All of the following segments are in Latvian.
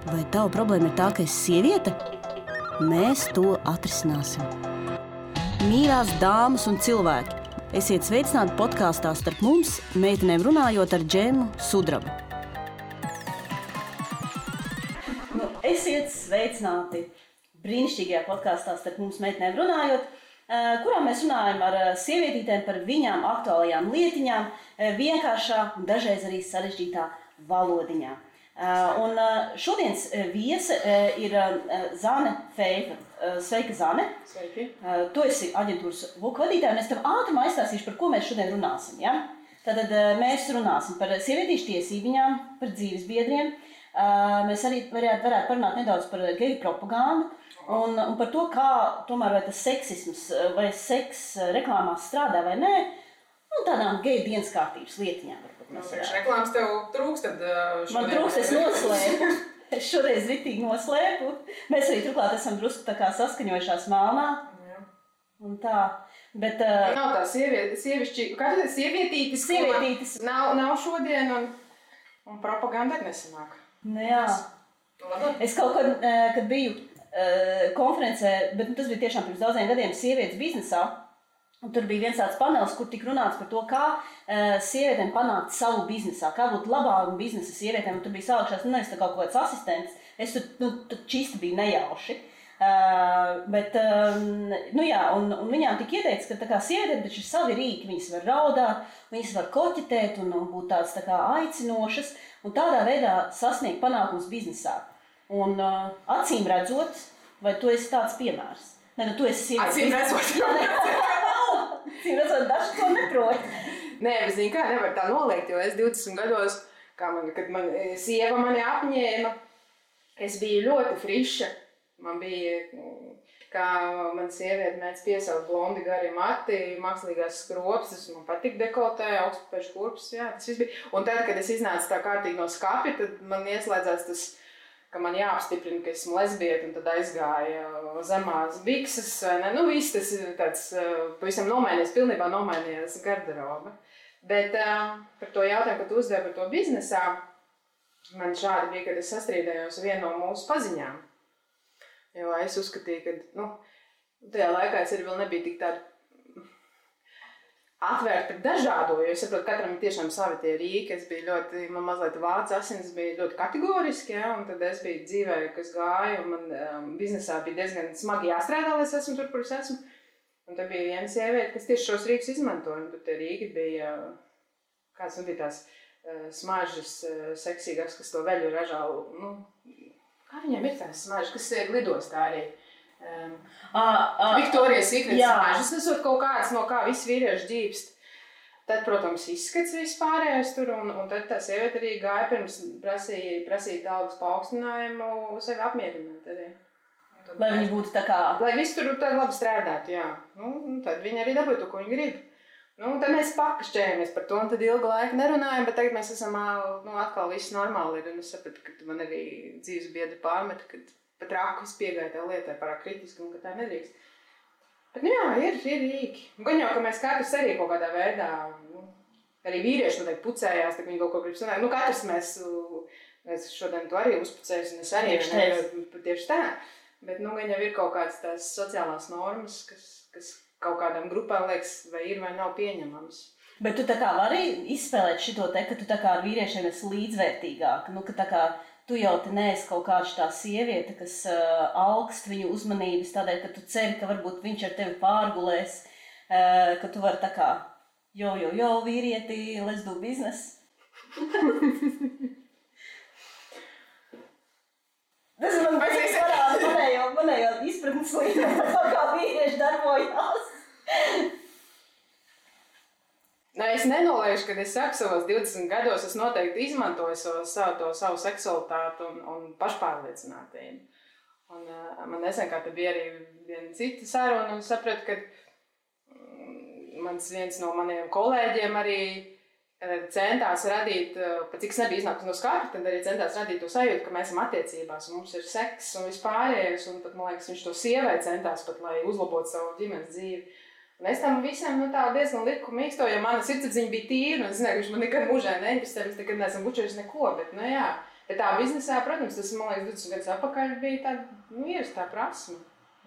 Vai tava problēma ir tā, ka esi sieviete? Mēs to atrisināsim. Mīļās dāmas un cilvēki, esiet sveicināti podkāstā Starp mums, meitenēm runājot ar Džemu Sudrabu. Esiet sveicināti brīnišķīgajā podkāstā Starp mums, meitenēm runājot, kurā mēs runājam ar sievietītēm par viņām aktuālajām lietiņām, vienkāršā un dažreiz arī sarežģītā valodiņā. Un šodienas viese ir Zane Feifa. Sveika, Zane! Sveiki! Tu esi aģentūras VUK vadītāja, un es tev ātrumā aizstāstīšu, par ko mēs šodien runāsim. Ja? Tātad mēs runāsim par sievietīšu tiesībām, par dzīvesbiedriem. Mēs arī varētu parunāt nedaudz par geju propagandu un par to, kā tomēr vai tas seksisms vai seks reklāmās strādā vai nē, un tādām geju dienas kārtības lietiņām. Reklāmas tev trūkst, tad šodien... Man trūkst, es noslēpu. Es šoreiz ritīgi noslēpu. Mēs arī turklāt esam drusku tā kā saskaņojušās melnā. Jā. Un tā. Bet... Nav tā sievišķi... Kā tu teici, sievietītis? Sievietītis. Nav šodien un propaganda ir nesanāk. Nu jā. Es kaut kad biju konferencē, bet tas bija tiešām pirms daudziem gadiem sievietes biznesā. Un tur bija viens tāds panelis, kur tika runāts par to, kā sievietēm panākt savu biznesā, kā būt labāku biznesa sievietēm. Un tur bija sākšās, nevis tā kaut kāds asistents, es tur čista biju nejauši. Bet, nu jā, un viņām tika ieteikts, ka tā kā sievietēm taču ir savi rīki, viņas var raudāt, viņas var koķetēt un būt tādas tā kā aicinošas, un tādā veidā sasniegt panākums biznesā. Un acīm redzot, vai tu esi tāds piemērs? Ne, tu esi sievietes. Acīm redzot. Cīm redzot, daži to neprot. Nē, bet zini kā, nevar tā noliegt, jo es 20 gados, kad sieva mani apņēma, es biju ļoti friša. Man bija, kā man sieviete mēdz piesaukt blondi gari mati, mākslīgās skropstas, man patīk dekoltē, augstpēšu kurpes, jā, tas viss bija. Un tad, kad es iznācu tā kārtīgi no skapja, tad man ieslēdzās tas, ka man jāapstiprina, ka esmu lesbieta, un tad aizgāja zemās bikses, vai ne? Nu, viss tas ir tāds, pavisam pilnībā nomainījās garderoba. Bet par to jautājumu, kad uzdevu par to biznesā, man šādi bija, kad es sastrīdējos vienu no mūsu paziņām. Jo es uzskatīju, ka, tajā laikā es arī vēl nebija tik tāda atvērta par dažādo, jo es saprotu, katram ir tiešām savi tie rīki. Es biju man mazliet vācu asins bija ļoti kategoriski, ja, un tad es biju dzīvē, kas gāja, un man biznesā bija diezgan smagi jāstrādā, lai es esmu tur, kur es esmu. Un tad bija viena sieviete, kas tieši šos rīkus izmantoja, un tur tie rīki bija, kāds bija tās smaržas seksīgāks, kas to veļu ražā, kā viņiem ir tās smaržas, kas lidostā arī. Viktorijas Secret smaržas, tas ir kaut kāds, no kā visi vīrieši ģīpst. Tad, protams, izskats vispārējais tur, un tad tā sieviete arī gāja pirms prasīt algas paaugstinājumu sevi apmierināt arī. Lai viņi būtu tā kā... Lai viss tur tā labi strādātu, jā. Tad viņi arī dabūja to, ko viņi grib. Tad mēs pakašķējamies par to, un tad ilgu laiku nerunājam, bet tagad mēs esam, atkal viss normāli ir, un es sapratu, ka man arī dzīves biedri pārmeta, kad pat raku es piegāju tā lietai pārāk kritiski, un ka tā nedrīkst. Bet, jā, ir rīki. Gan jau, ka mēs katrs arī kaut kādā veidā, arī vīrieši noteikti pucējās, tā viņi kaut ko grib sanākt. Katrs mēs šodien to arī uzpucējas, un es arī tieši tā. Bet, gan jau ir kaut kādas tās sociālās normas, kas kaut kādām grupām liekas, vai ir vai nav pieņemams. Bet tu tā kā vari izspēlēt šito te, ka tu tā kā ar vīriešiem esi līdzvērtīgāk, ka tā kā tu jau te neesi kaut kāda tā sieviete, kas augst viņu uzmanības tādēļ, ka tu ceri, ka varbūt viņš ar tevi pārgulēs, ka tu vari tā kā, jo, vīrieti, let's do business. Tas ir manējo izpratnes līdzi, kā vīrieši darbojās. Es nenoliešu, kad es saku savos 20 gados, es noteikti izmantoju savu seksualitāti un pašpārliecinātību. Un man nesen kā te bija arī viena cita saruna, un sapratu, ka viens no maniem kolēģiem arī centās radīt, pat cik es nebiju iznākusi no skapja, tad arī centās radīt to sajūtu, ka mēs esam attiecībās, un mums ir seks un vispārējais, un pat, man liekas, viņš to sievai centās pat, lai uzlabotu savu ģimenes dzīvi. Un es tam visam diezgan liku mīksto, jo mana sirdsapziņa bija tīra, un es zināju, ka viņš man nekad mūžē neinvestē, mēs nekad neesam bučējuši neko, bet, jā, Bet tā biznesā, protams, tas, man liekas, 20 gadus atpakaļ bija tāda ierastā prasme.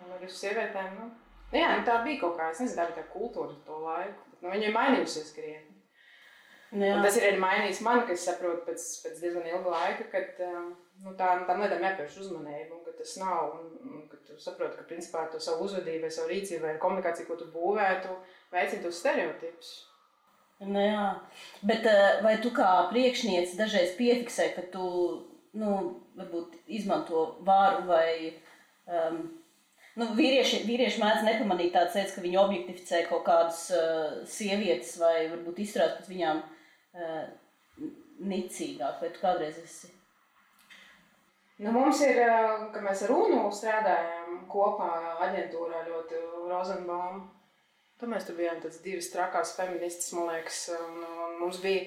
Un ar sievietēm, tā bija kaut kā, es nezinu, tā bija tā kultūra to laiku. Bet, viņa ir mainījusies krietni. Un tas ir arī mainījis mani, ka es saprotu pēc diezgan ilga laika, kad tām lietām jāpievērš uzmanību, un ka tas nav, un ka tu saproti, ka principā to savu uzvedību, vai savu rīcību, vai komunikāciju, ko tu būvētu, veicina tos stereotipus. Jā, bet vai tu kā priekšniece dažreiz piefiksē, ka tu, varbūt izmanto vāru vai, vīrieši mēdz nepamanīt tādas lietas, ka viņi objektificē kaut kādas sievietes vai varbūt izturās pret viņām nicīgāk, vai tu kādreiz esi? Mums ir, kad mēs ar UNU strādājām kopā aģentūrā ļoti Rozenbaum, tad mēs tur bijām tāds divas trakās feministas, man liekas, un mums bija,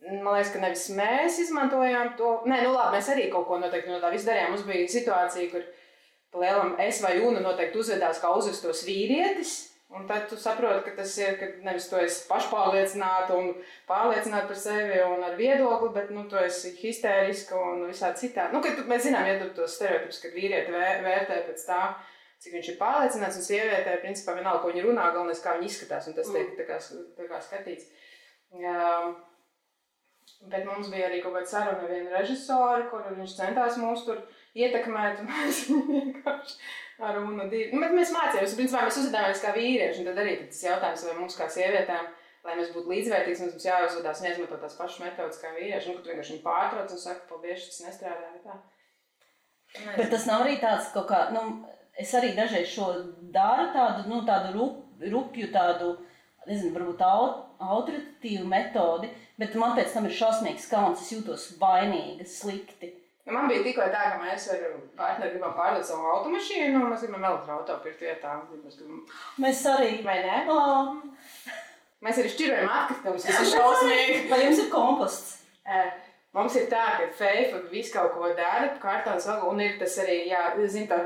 man liekas, ka nevis mēs izmantojām to, mēs arī kaut ko noteikti no tā visu darījām, mums bija situācija, kur pa lielam es vai UNU noteikti uzvedās kā uzvestos vīrietis, un tad tu saproti, ka tas ir, ka nevis tu esi pašpārliecināta un pārliecināta par sevi un ar viedokli, bet tu esi histēriska un visādi citādi. Kad mēs zinām, tos stereotipus, kad vīrieti vērtē pēc tā, cik viņš ir pārliecināts, un sievietē, principā, vienalga, ko viņi runā, galvenais, kā viņi izskatās, un tas tiek tā kā skatīts. Bet mums bija arī kaut kāda saruna ar vienu režisoru, kur viņš centās mūs tur ietekmēt, un mēs vienkārši ar UNU divi. Bet mēs mācījāmies, principā mēs uzvedāmies kā vīrieši, un tad arī tas jautājums, vai mums kā sievietēm, lai mēs būtu līdzvērtīgs, mums jāuzvedās un jāizmanto tās pašas metodas kā vīrieši, un kad tu vienkārši viņu pārtrauc un saka, paldies, tas nestrādā, tā. Bet tas nav arī tāds kaut kā, es arī dažreiz šo daru tādu rupju, tādu, nezinu, varbūt autoritatīvu metodi, bet man pēc tam ir šausmīgs kauns, es jūtos vainīga, slikti. Man bija tikko tā, ka mēs ar partneri gribam pārdot savu automašīnu, un mēs gribam elektroauto pirkt vietā. Mēs arī. Vai ne? Mēs arī šķirojam atkritumus, kas ir šausmīgi. Vai jums ir komposts? Mums ir tā, ka Feifa visu kaut ko dara, kārtons vēl, un ir tas arī, zin, tā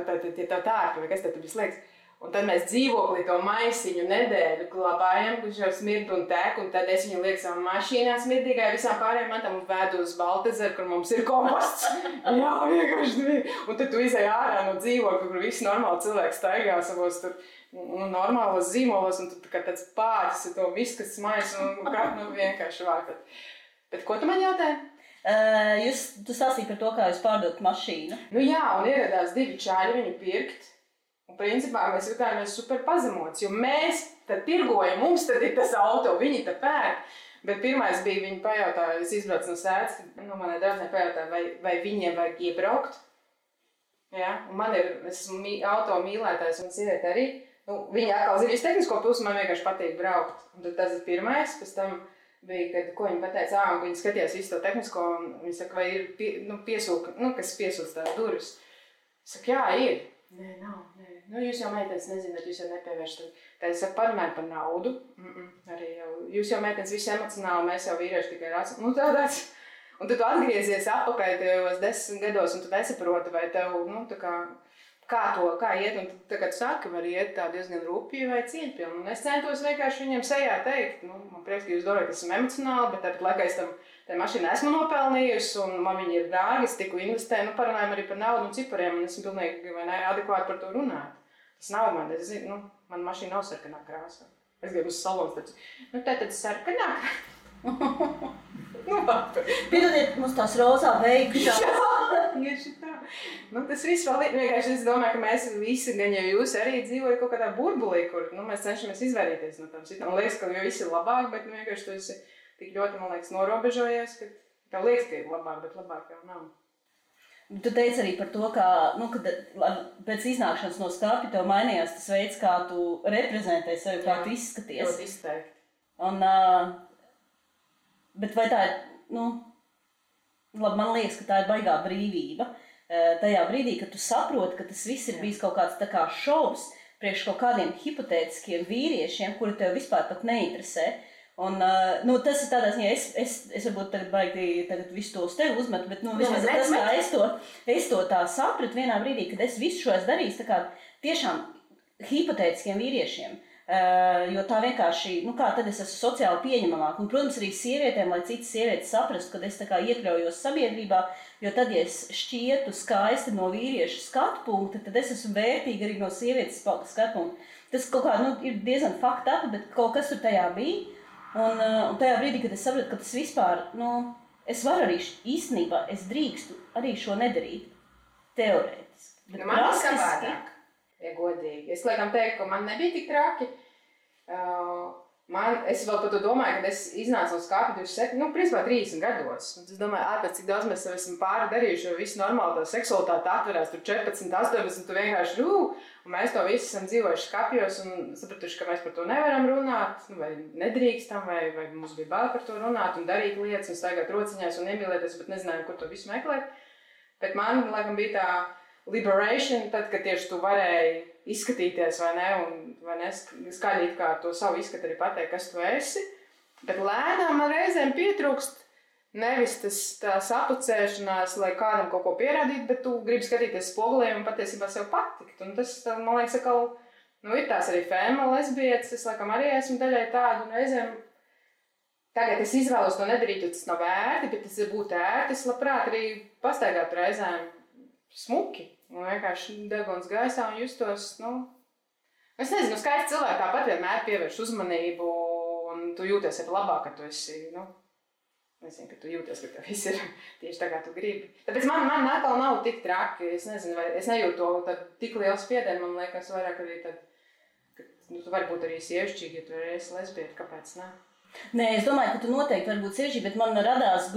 tārpa, vai kas tad visu liekas. Un tad mēs dzīvoklī to maisiņu nedēļu glabājam, kurš jau smird un tek, un tad es viņu lieku savā mašīnā smirdīgai visām pārējām mantām un vedu uz Baltazaru, kur mums ir komposts. Jā, vienkārši. Un tad tu izej ārā no dzīvokļa, kur visi normāli cilvēki staigā savos tur normālos zīmolos, un tu kā tāds pāķis ar to visu, kas smais un vienkārši vākat. Bet ko tu man jautāji? Tu stāstīji par to, kā jūs pārdot mašīnu. Jā, un ieradās divi čāļi viņu pirkt. Un principā mēs jutājāmies super pazemots, jo mēs tad tirgojam, mums tad ir tas auto, viņi tad pērk. Bet pirmais bija, viņi pajautāja, es izbraucu no sēdes, manai draudzene pajautāja, vai viņiem vajag iebraukt. Ja? Un man ir, es esmu auto mīlētājs un sieviete arī. Viņa atkal zina visu tehnisko pusi, man vienkārši patīk braukt. Un tad tas ir pirmais, pēc tam bija, kad, ko viņa pateica, un viņi skatījās visu to tehnisko, un viņi saka, vai ir piesūka, kas piesūc tās durvis. Es saku, jā, ir. Nē, nav. Jūs jau meitenes nezināt, jūs jau nepievēršat. Tad es saku, parunāju par naudu. Arī jau, jūs jau meitenes visi emocionāli, mēs jau vīrieši tikai racionāli. Tādāds. Un tad tu atgriezies atpakaļ tajos 10 gados, un tu nesaproti, vai tev, kā iet. Un tad, kad tu saki, var iet tā diezgan rupji vai cieņpilni. Un es centos vienkārši viņiem sejā teikt, man prieks, ka jūs domājat, ka esmu emocionāli, bet tāpat laikā es tā mašīna esmu nopelnījusi, un man viņi ir dārgi, es tiku investēju, parunājam arī par naudu un cipariem, un esmu pilnīgi adekvāti par to runāt. Tas nav man, es zinu, man mašīna nav sarkanā krāsā. Es gribu uz salons, tad sarkanā. Piedodiet, mums tās rozā veikšās. Tieši tā. Tas viss vēl ir, vienkārši es domāju, ka mēs visi, gan jau jūs arī dzīvojat kaut kādā burbulī, kur mēs cenšamies izvairīties no tām situācijām. Man liekas, ka jau viss ir labāk, bet vienkārši tu esi tik ļoti, man liekas, norobežojies, ka tev liekas, ka ir labāk, bet labāk jau nav. Tu teici arī par to, ka, kad pēc iznākšanas no skapja tev mainījās tas veids, kā tu reprezentē sevi, kā tu izskaties. Ļoti izteikti. Bet vai tā ir, man liekas, ka tā ir baigā brīvība. Tajā brīdī, kad tu saproti, ka tas viss ir bijis kaut kāds tā kā šovs priekš kaut kādiem hipotētiskiem vīriešiem, kuri tev vispār pat neinteresē. Un, tas ir tādā ziņā, es varbūt tagad visu to uz tevi uzmetu, bet, vismaz tas, kā es to tā sapratu vienā brīdī, kad es visu šo esmu darījis, tā kā tiešām hipotētiskiem vīriešiem. Jo tā vienkārši, kā tad es esmu sociāli pieņemamāk. Un, protams, arī sievietēm, lai citas sievietes saprastu, kad es tā kā iekļaujos sabiedrībā, jo tad, ja es šķietu skaisti no vīrieša skatu punkta, tad es esmu vērtīga arī no sievietes skatu punkta. Tas kaut kā, ir diezgan fucked up, bet kaut kas tur tajā bija. Un tajā brīdī, kad es sapratu, ka tas vispār, es varu arī īstenībā, es drīkstu arī šo nedarīt, teorētiski. Bet man ir savādāk. Ja godīgi. Es laikam teiktu, ka man nebija tik traki. Es vēl par to domāju, kad es iznācu no skāpja 27, principā 30 gados. Un es domāju, ārpēc cik daudz mēs esam pāri darījuši, jo visu normāli tā seksualitāte atverās tur 14, 18, tu vienkārši un mēs to visi esam dzīvojuši skapjos un sapratuši, ka mēs par to nevaram runāt, vai nedrīkstam, vai mums bija bail par to runāt un darīt lietas un staigāt rociņās un iemīlēties, bet nezinājām, kur to visu meklēt. Bet man, laikam, bija tā liberation, tad, kad tieši tu varēji izskatīties, vai ne, skaļīt kā to savu izskatu arī pateikt, kas tu esi. Bet lēnām man reizēm pietrūkst nevis tā sapucēšanās, lai kādam kaut ko pierādītu, bet tu gribi skatīties spogulī un patiesībā sev patikt. Un tas, man liekas, atkal, ir tās arī fēma lesbietes, es laikam arī esmu daļai tādu, un reizēm tagad es izvēlos to nedarīt, jo tas nav ērti, bet tas ir būt ērti, es labprāt arī pastaigāt reizēm smuki. Un vienkārši deguns gaisā un justos, es nezinu, skaisti cilvēki tāpat vienmēr pievērš uzmanību un tu jūties arī labāk, ka tu esi, nezinu, ka tu jūties, ka tev viss ir tieši tā, kā tu gribi. Tāpēc man atkal nav tik traki, es nezinu, vai es nejūtu to tik lielu spiedienu, man liekas vairāk arī tad, ka tu vari būt arī sievišķīgi, ja tu esi lesbieta, kāpēc ne? Nē, es domāju, ka tu noteikti vari būt sievišķīgi, bet man radās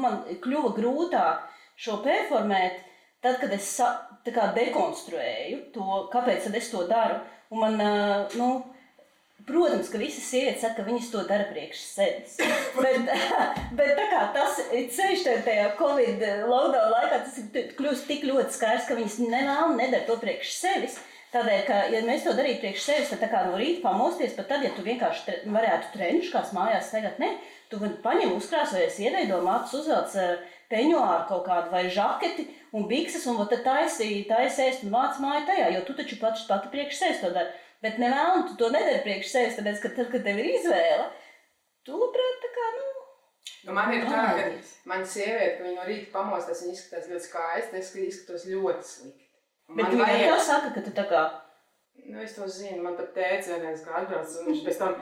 man kļuva grūtāk šo performēt, tad, kad es dekonstruēju to, kāpēc tad es to daru, un man, protams, ka visas sievietes saka, ka viņas to dara priekš sevis. bet tā kā tas ceļš tajā Covid lockdown laikā, tas ir kļūst tik ļoti skaidrs, ka viņas nedara to priekš sevis. Tādēļ, ka, ja mēs to darītu priekš sevis, tad tā kā no rīta pamosties, pat tad, ja tu vienkārši varētu trenčkās mājās tagad, tu paņem uzkrāsojies, ieveido matus, uzvelc peņuāru kaut kādu vai žaketi un bikses, un tad taisi ēst un vāc māju tajā, jo tu taču pati priekš sevis to dari. Bet nevēlam, tu to nedari priekš sevis, tāpēc, ka tad, kad tev ir izvēle, tu labprāt tā kā, man ir tā, ka man sieviete, ka viņa no rīta pamostās, viņa izskatās ļoti skaisti, es izskatos ļoti slikti. Bet viņa jau saka, ka tu tā kā... Es to zinu, man pat tēcis vienreiz kā atbrauc, un viņš pēc tam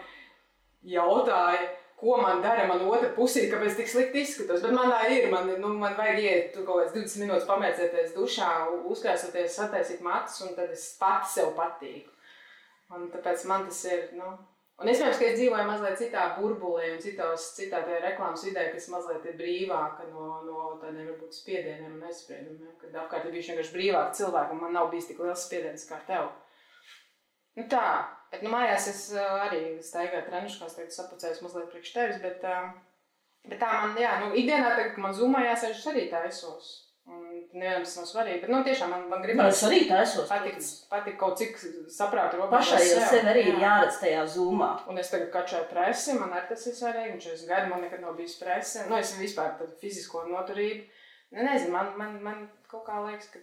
jautāja, ko man dara man otra pusī, kāpēc tik slikti izskatos. Bet man tā ir, man vajag iet tu kaut kāds 20 minūtes pamēcēties dušā, uzkrāsoties, sataisīt matus, un tad es pati sev patīku. Un tāpēc man tas ir, Un iespējams, ka es dzīvoju mazliet citā burbulī un citā tajā reklāmas vidē, kas mazliet ir brīvāka no tādiem varbūt spiedieniem un aizspriedumiem, kad apkārt ir bijuši vienkārši brīvāki cilvēki, un man nav bijis tik liels spiediens kā tev. Tā, bet mājās es arī staigāju treniškās, tagad sapucējos mazliet priekš tevis, bet tā man, ikdienā tagad, ka man zumā jāsēž, es arī tā esos. Un nevienam tas nav svarīgi, bet tiešām man gribas patikt kaut cik saprātu robežu. Pašai jau sev arī ir jāredz tajā zumā. Un es tagad kačēju presi, man arī tas ir svarīgi, un 40 gadi man nekad nav bijis presi. Es vispār tādu fizisko noturību. Nezinu, man kaut kā liekas, ka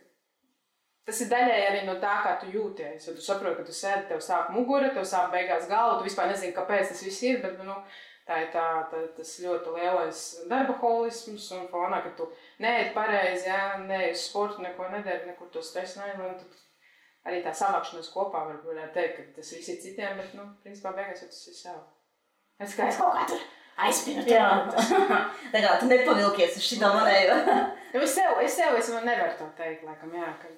tas ir daļai arī no tā, kā tu jūties. Jo tu saproti, ka tu sēdi, tev sāp mugura, tev sāp beigās galva, tu vispār nezini, kāpēc tas viss ir, bet tā ir tas ļoti lielais darbaholisms un fonā, ka tu neēd pareizi, neēd uz sportu, neko nedari, nekur to stresu neēd. Tad arī tā savākšanās kopā varētu teikt, ka tas viss ir citiem, bet, principā beigās jau tas ir sev. Es kā es kaut kā tur aizpinu. Jā, tā kā tu nepavilkies uz šitā manējo. Es nevaru to teikt, laikam, kad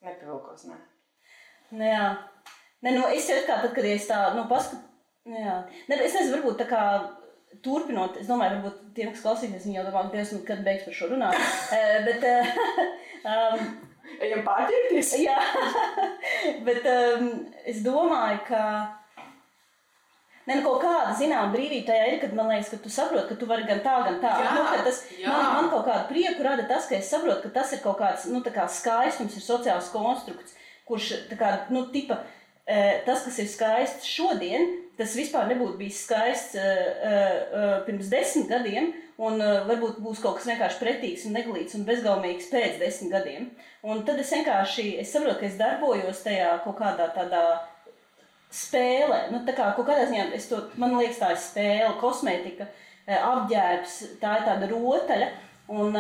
nepavilkos, nē. Jā. Es jau kā tad, kad es tā, paskatu, jā. Es nezinu, varbūt tā kā turpinot, es domāju, varbūt tiem, kas klausīsies, viņi jau domā, kad beigs par šo runāt. Ejam pārķerties? Jā, bet es domāju, ka kaut kāda zināma brīvība tajā ir, kad man liekas, ka tu saproti, ka tu vari gan tā. Man kaut kādu prieku rada tas, ka es saprotu, ka tas ir kaut kāds, tā kā skaistums, ir sociāls konstrukts, kurš tā kā, tas, kas ir skaists šodien, tas vispār nebūtu bijis skaists pirms 10 gadiem, un varbūt būs kaut kas vienkārši pretīgs un neglīts un bezgaumīgs pēc 10 gadiem. Un tad es saprotu, ka es darbojos tajā kaut kādā tādā spēle. Nu, tā kā kaut kādā ziņā, man liekas, tā ir spēle, kosmētika, apģērbs, tā ir tāda rotaļa. Un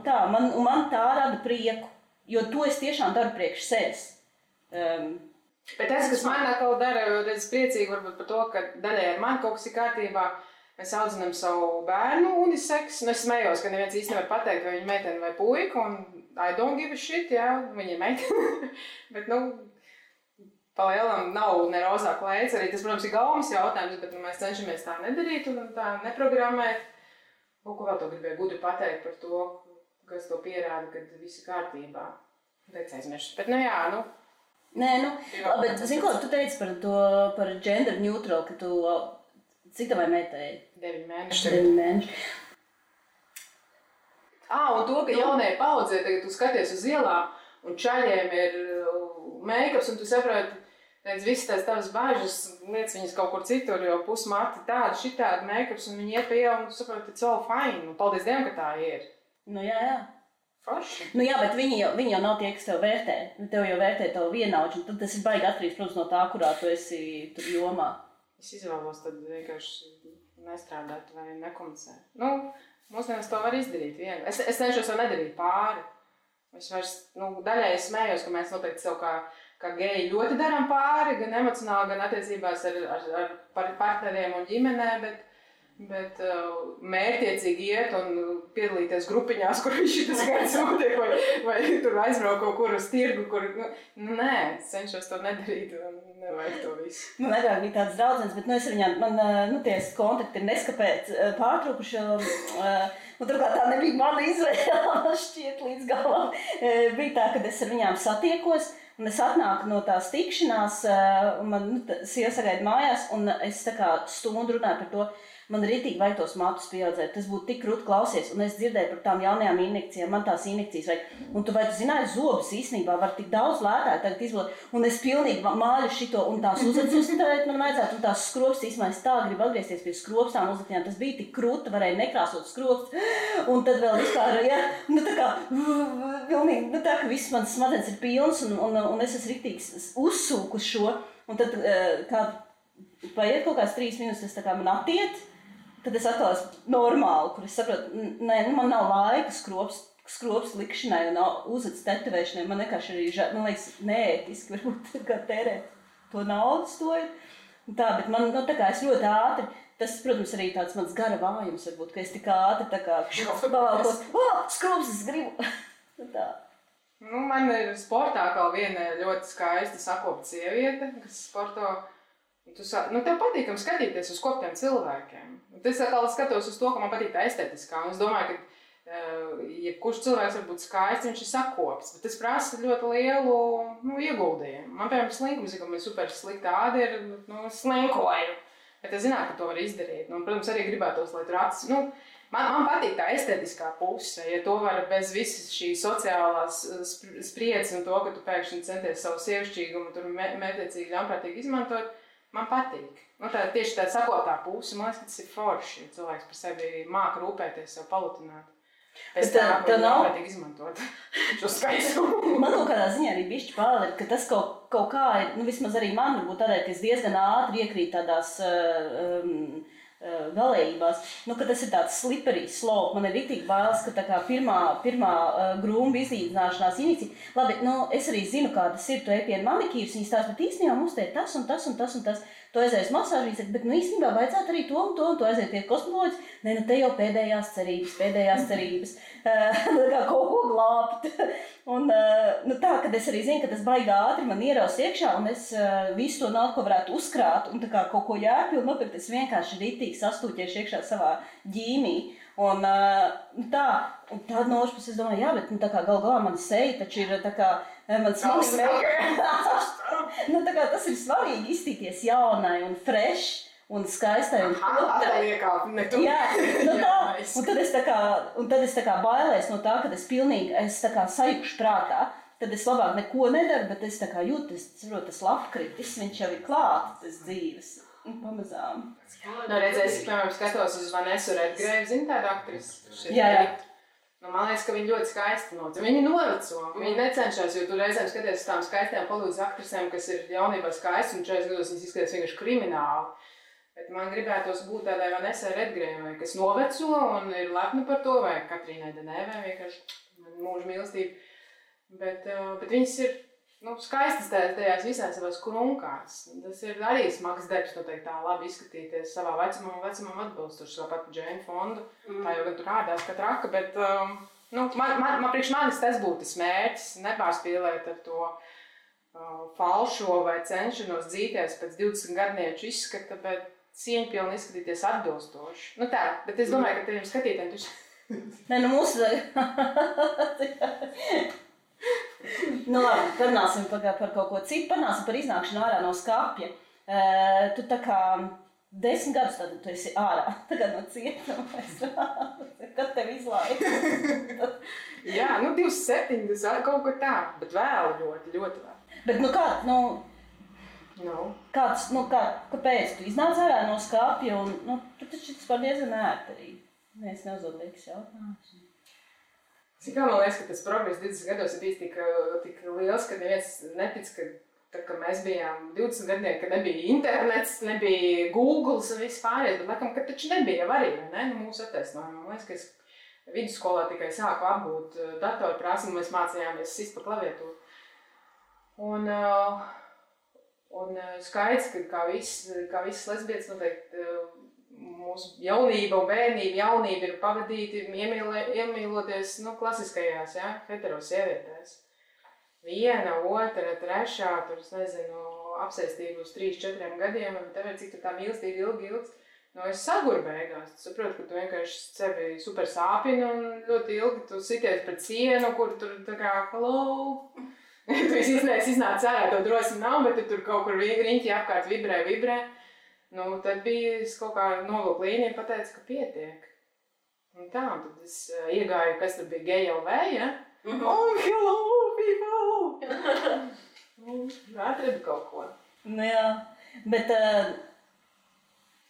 tā, man tā rada prieku, jo to es tiešām daru priekš sevis. Bet tas, kas man atkal dara, es priecīgi varbūt par to, ka daļai ar mani kaut kas ir kārtībā. Mēs audzinām savu bērnu uniseks. Nu, es smējos, ka neviens īsti nevar pateikt, vai viņa meitene vai puika, un I don't give a shit, jā, viņa ir meitene. Bet, pa lielam nav ne rozā klēts. Arī tas, protams, ir gaumas jautājums, bet mēs cenšamies tā nedarīt un tā neprogrammēt. Ko vēl to gribēju gudri pateikt par to, kas to pierāda, kad viss ir kārtībā. Teic aizmirst. Bet, jā, Nē, bet, zini ko, tu teici par gender neutral, ka tu... Cik tavai meitai? 9 mēneši. 9 mēneši. Un to, ka jaunajai paudzē, tagad tu skaties uz ielām, un čaļiem ir make-ups, un tu saproti, visas tās tavas bāžas, lietas viņas kaut kur citur, jo pusmati tādi, šitādi make-ups, un viņi iet pie ielu, un tu saproti, it's all fine, un paldies Dievam, ka tā ir. Jā. Forši. Jā, bet viņi jau nav tie, kas tev vērtē. Tev jau vērtē tavu vienaudžu, un tad tas ir baigi atkarīgs, protams, no tā, kurā tu esi tur jomā. Es izvēlos tad vienkārši nestrādāt vai nekomunicēt. Mūsdienās to var izdarīt viegli. Es cenšos to nedarīt pāri. Es vairs, daļai es smējos, ka mēs noteikti sev kā geji ļoti darām pāri, gan emocionāli, gan attiecībās ar partneriem un ģimenē, bet mērķiecīgi iet un piedalīties grupiņās, kur šitas gads notiek, vai tur aizbraukt kaut kur uz tirgu, kur, nē, cenšos to nedarīt un nevajag to visu. Agrāk bija tāds draudzenes, bet es ar viņām, ties kontakti ir neskapēc pārtraukuši, un turklāt tā nebija mana izvēle, man šķiet līdz galam. Bija tā, kad es ar viņām satiekos, un es atnāku no tās tikšanās, un man sieva sagaida mājās, un es tā kā stundu runāju par to, man ritīgi vajag tos matus pieaudzēt, tas būtu tik krūti klausies, un es dzirdēju par tām jaunajām injekcijām, man tās injekcijas vajag. Un tu zināji, zobus īstenībā var tik daudz lētāk tagad izvilkt, un es pilnīgi māļu šito, un tās uzatustēt man vajadzētu, un tās skropstas, īstenībā es tā gribu atgriezties pie skropstām uzatījām, tas bija tik krūti, varēja nekrāsot skropstas, un tad vēl vispār, tā kā, pilnīgi, tā ka viss mans smadzenes ir pilns, un es esmu ritīgi uzsūku šo, un tad, paiet kaut kāds 3 minūtes, tā kā man attiet, tad es atkal esmu normāli, kur es saprotu, man nav laika skropst likšanai un uzats tetovēšanai. Man vienkārši arī, man liekas, neētiski varbūt kā tērēt to naudas to ir. Tā, bet man, tā kā es ļoti ātri, tas, protams, arī tāds mans gara vājums varbūt, ka es tik ātri tā kā pavalkos, skropstas gribu. Tā. Man ir sportā kā viena ļoti skaista sakopta sieviete, kas sporto. Tev patīkam skatīties uz koptiem cilvēkiem. Es atkal skatos uz to, ka man patīk tā estētiskā. Un es domāju, ka jebkurš cilvēks var būt skaists, viņš ir sakops. Bet tas prasa ļoti lielu ieguldījumu. Man, piemēram, slinkums, ka man ir super slikta āda ir, slinkoju. Bet es zinātu, ka to var izdarīt. Protams, arī gribētos, lai tur acis. Man patīk tā estētiskā puse. Ja to var bez visas šīs sociālās spriedzes un to, ka tu pēkšņi centies savu sievišķīgumu tur mērķiecīgi ļaunprātīgi izmantot, man patīk. Tieši tā sakotā puse, man liekas, ka tas ir forši. Cilvēks par sevi māka rūpēties, sev palutināt. Pēc tā ļaunprātīgi izmantot šo skaistumu. Man kaut kādā ziņā arī bišķi pārliek, ka tas kaut kā ir, vismaz arī man varbūt tādēļ, ka es diezgan ātri iekrīt tādās galējībās, ka tas ir tāds slippery slope. Man ir ritīgi bailes, ka tā kā pirmā grūmba izīdzināšanās injekcija. Labi, es arī zinu, kā tas ir, tu ej pie manikīras, viņas tās, bet īstenībā mums te ir tas un tas un tas un tas. Tu aizies masāžīs, bet īstenībā vajadzētu arī to un to, un tu aiziet pie kosmetoloģijas. Te jau pēdējās cerības. Kā kaut ko glābt. Un tā, kad es arī zinu, ka tas baigi ātri man ieraus iekšā, un es visu to naudu, ko varētu uzkrāt, un tā kā kaut ko jēpilnu nopirkt, es vienkārši ritīgi sastūķiešu iekšā savā ģīmī. Un tāda no otras puses es domāju, jā, bet tā kā gal galā man seja taču ir tā kā man svarīgi. Tā kā tas ir svarīgi izstīties jaunai un fresh un skaistai un putrai. Jā, un tad es tā kā bailēs no tā, kad es tā kā sajūkšu prātā. Tad es labāk neko nedaru, bet es tā kā jūtu, tas labkritis, viņš jau ir klāt, tas dzīves. Pamazām. Redzēs, piemēram, skatos uz Vanesu Redgrave, zini tādu aktrisi? Jā. Nu, man liekas, ka viņi ļoti skaisti notic. Viņi noveco, viņi necenšas, jo tu reizēm skaties uz tām skaistām Hollywood aktrisēm, kas ir jaunībā skaisti, un 40 gados viņas izskatās vienkārši krimināli. Bet man gribētos būt tādai Vanessai Redgrēvai, kas noveco un ir lepna par to, vai Katrīnai Denēvai vienkārši mūža mīlestība. Bet viņas ir skaistas tajās visās savās krunkās. Tas ir arī smags darbs, noteikti tā labi izskatīties savā vecumam atbilstoši, tāpat Jane Fonda. Tā jau gan tur ādās kā traka, bet priekš manis tas būtu tas mērķis, nepārspīlēt ar to falšo vai cenšanos dzīties pēc 20 gadnieču izskata, bet cieņpilni izskatīties atbilstoši. Nu tā, bet es domāju, ka tiem skatītājiem tu... Nē, mūsu... Labi, parunāsim par kaut ko citu, parunāsim par iznākšanu ārā no skapja. Tu tā kā 10 gadus tad tu esi ārā, tagad no cietuma, kad tev izlaiž? Jā, 27, tas kaut ko tā, bet vēl ļoti, ļoti vēl. Bet kāpēc tu iznāc ārā no skapja un tu taču tas var diezgan ērti arī. Mēs neuzdod liekas jautājums. Kā man liekas, ka tas progress 20 gados ir bijis tik liels, ka neviens netic, ka mēs bijām 20 gadnieki, ka nebija internets, nebija Googles un viss pārējais, bet laikam, ka taču nebija arī, ne? Mūsu attaisnojumi. Man liekas, ka es vidusskolā tikai sāku apgūt datorprasmi, mēs mācījāmies sist pa klaviatūru. Un skaidrs, ka kā visas lesbietes noteikti mūsu jaunība un jaunība ir pavadīti iemīloties klasiskajās, hetero sievietēs. Viena, otra, trešā, tur, es nezinu, apsēstību uz 3-4 gadiem, un tev ir cik tā mīlestība ilgi. Es saguru beigās. Tu saproti, ka tu vienkārši sevi super sāpini un ļoti ilgi tu sities pret sienu, kur tur tā kā, hello. Tu iznāc ārā, tev drosmi nav, bet tu tur kaut kur riņķi apkārt vibrē. Tad bija kaut kā novilku līniju un pateicu, ka pietiek. Un tā, un tad es iegāju, kas tur bija GLV, ja? Oh, hello, people! Atradu kaut ko. Jā, bet...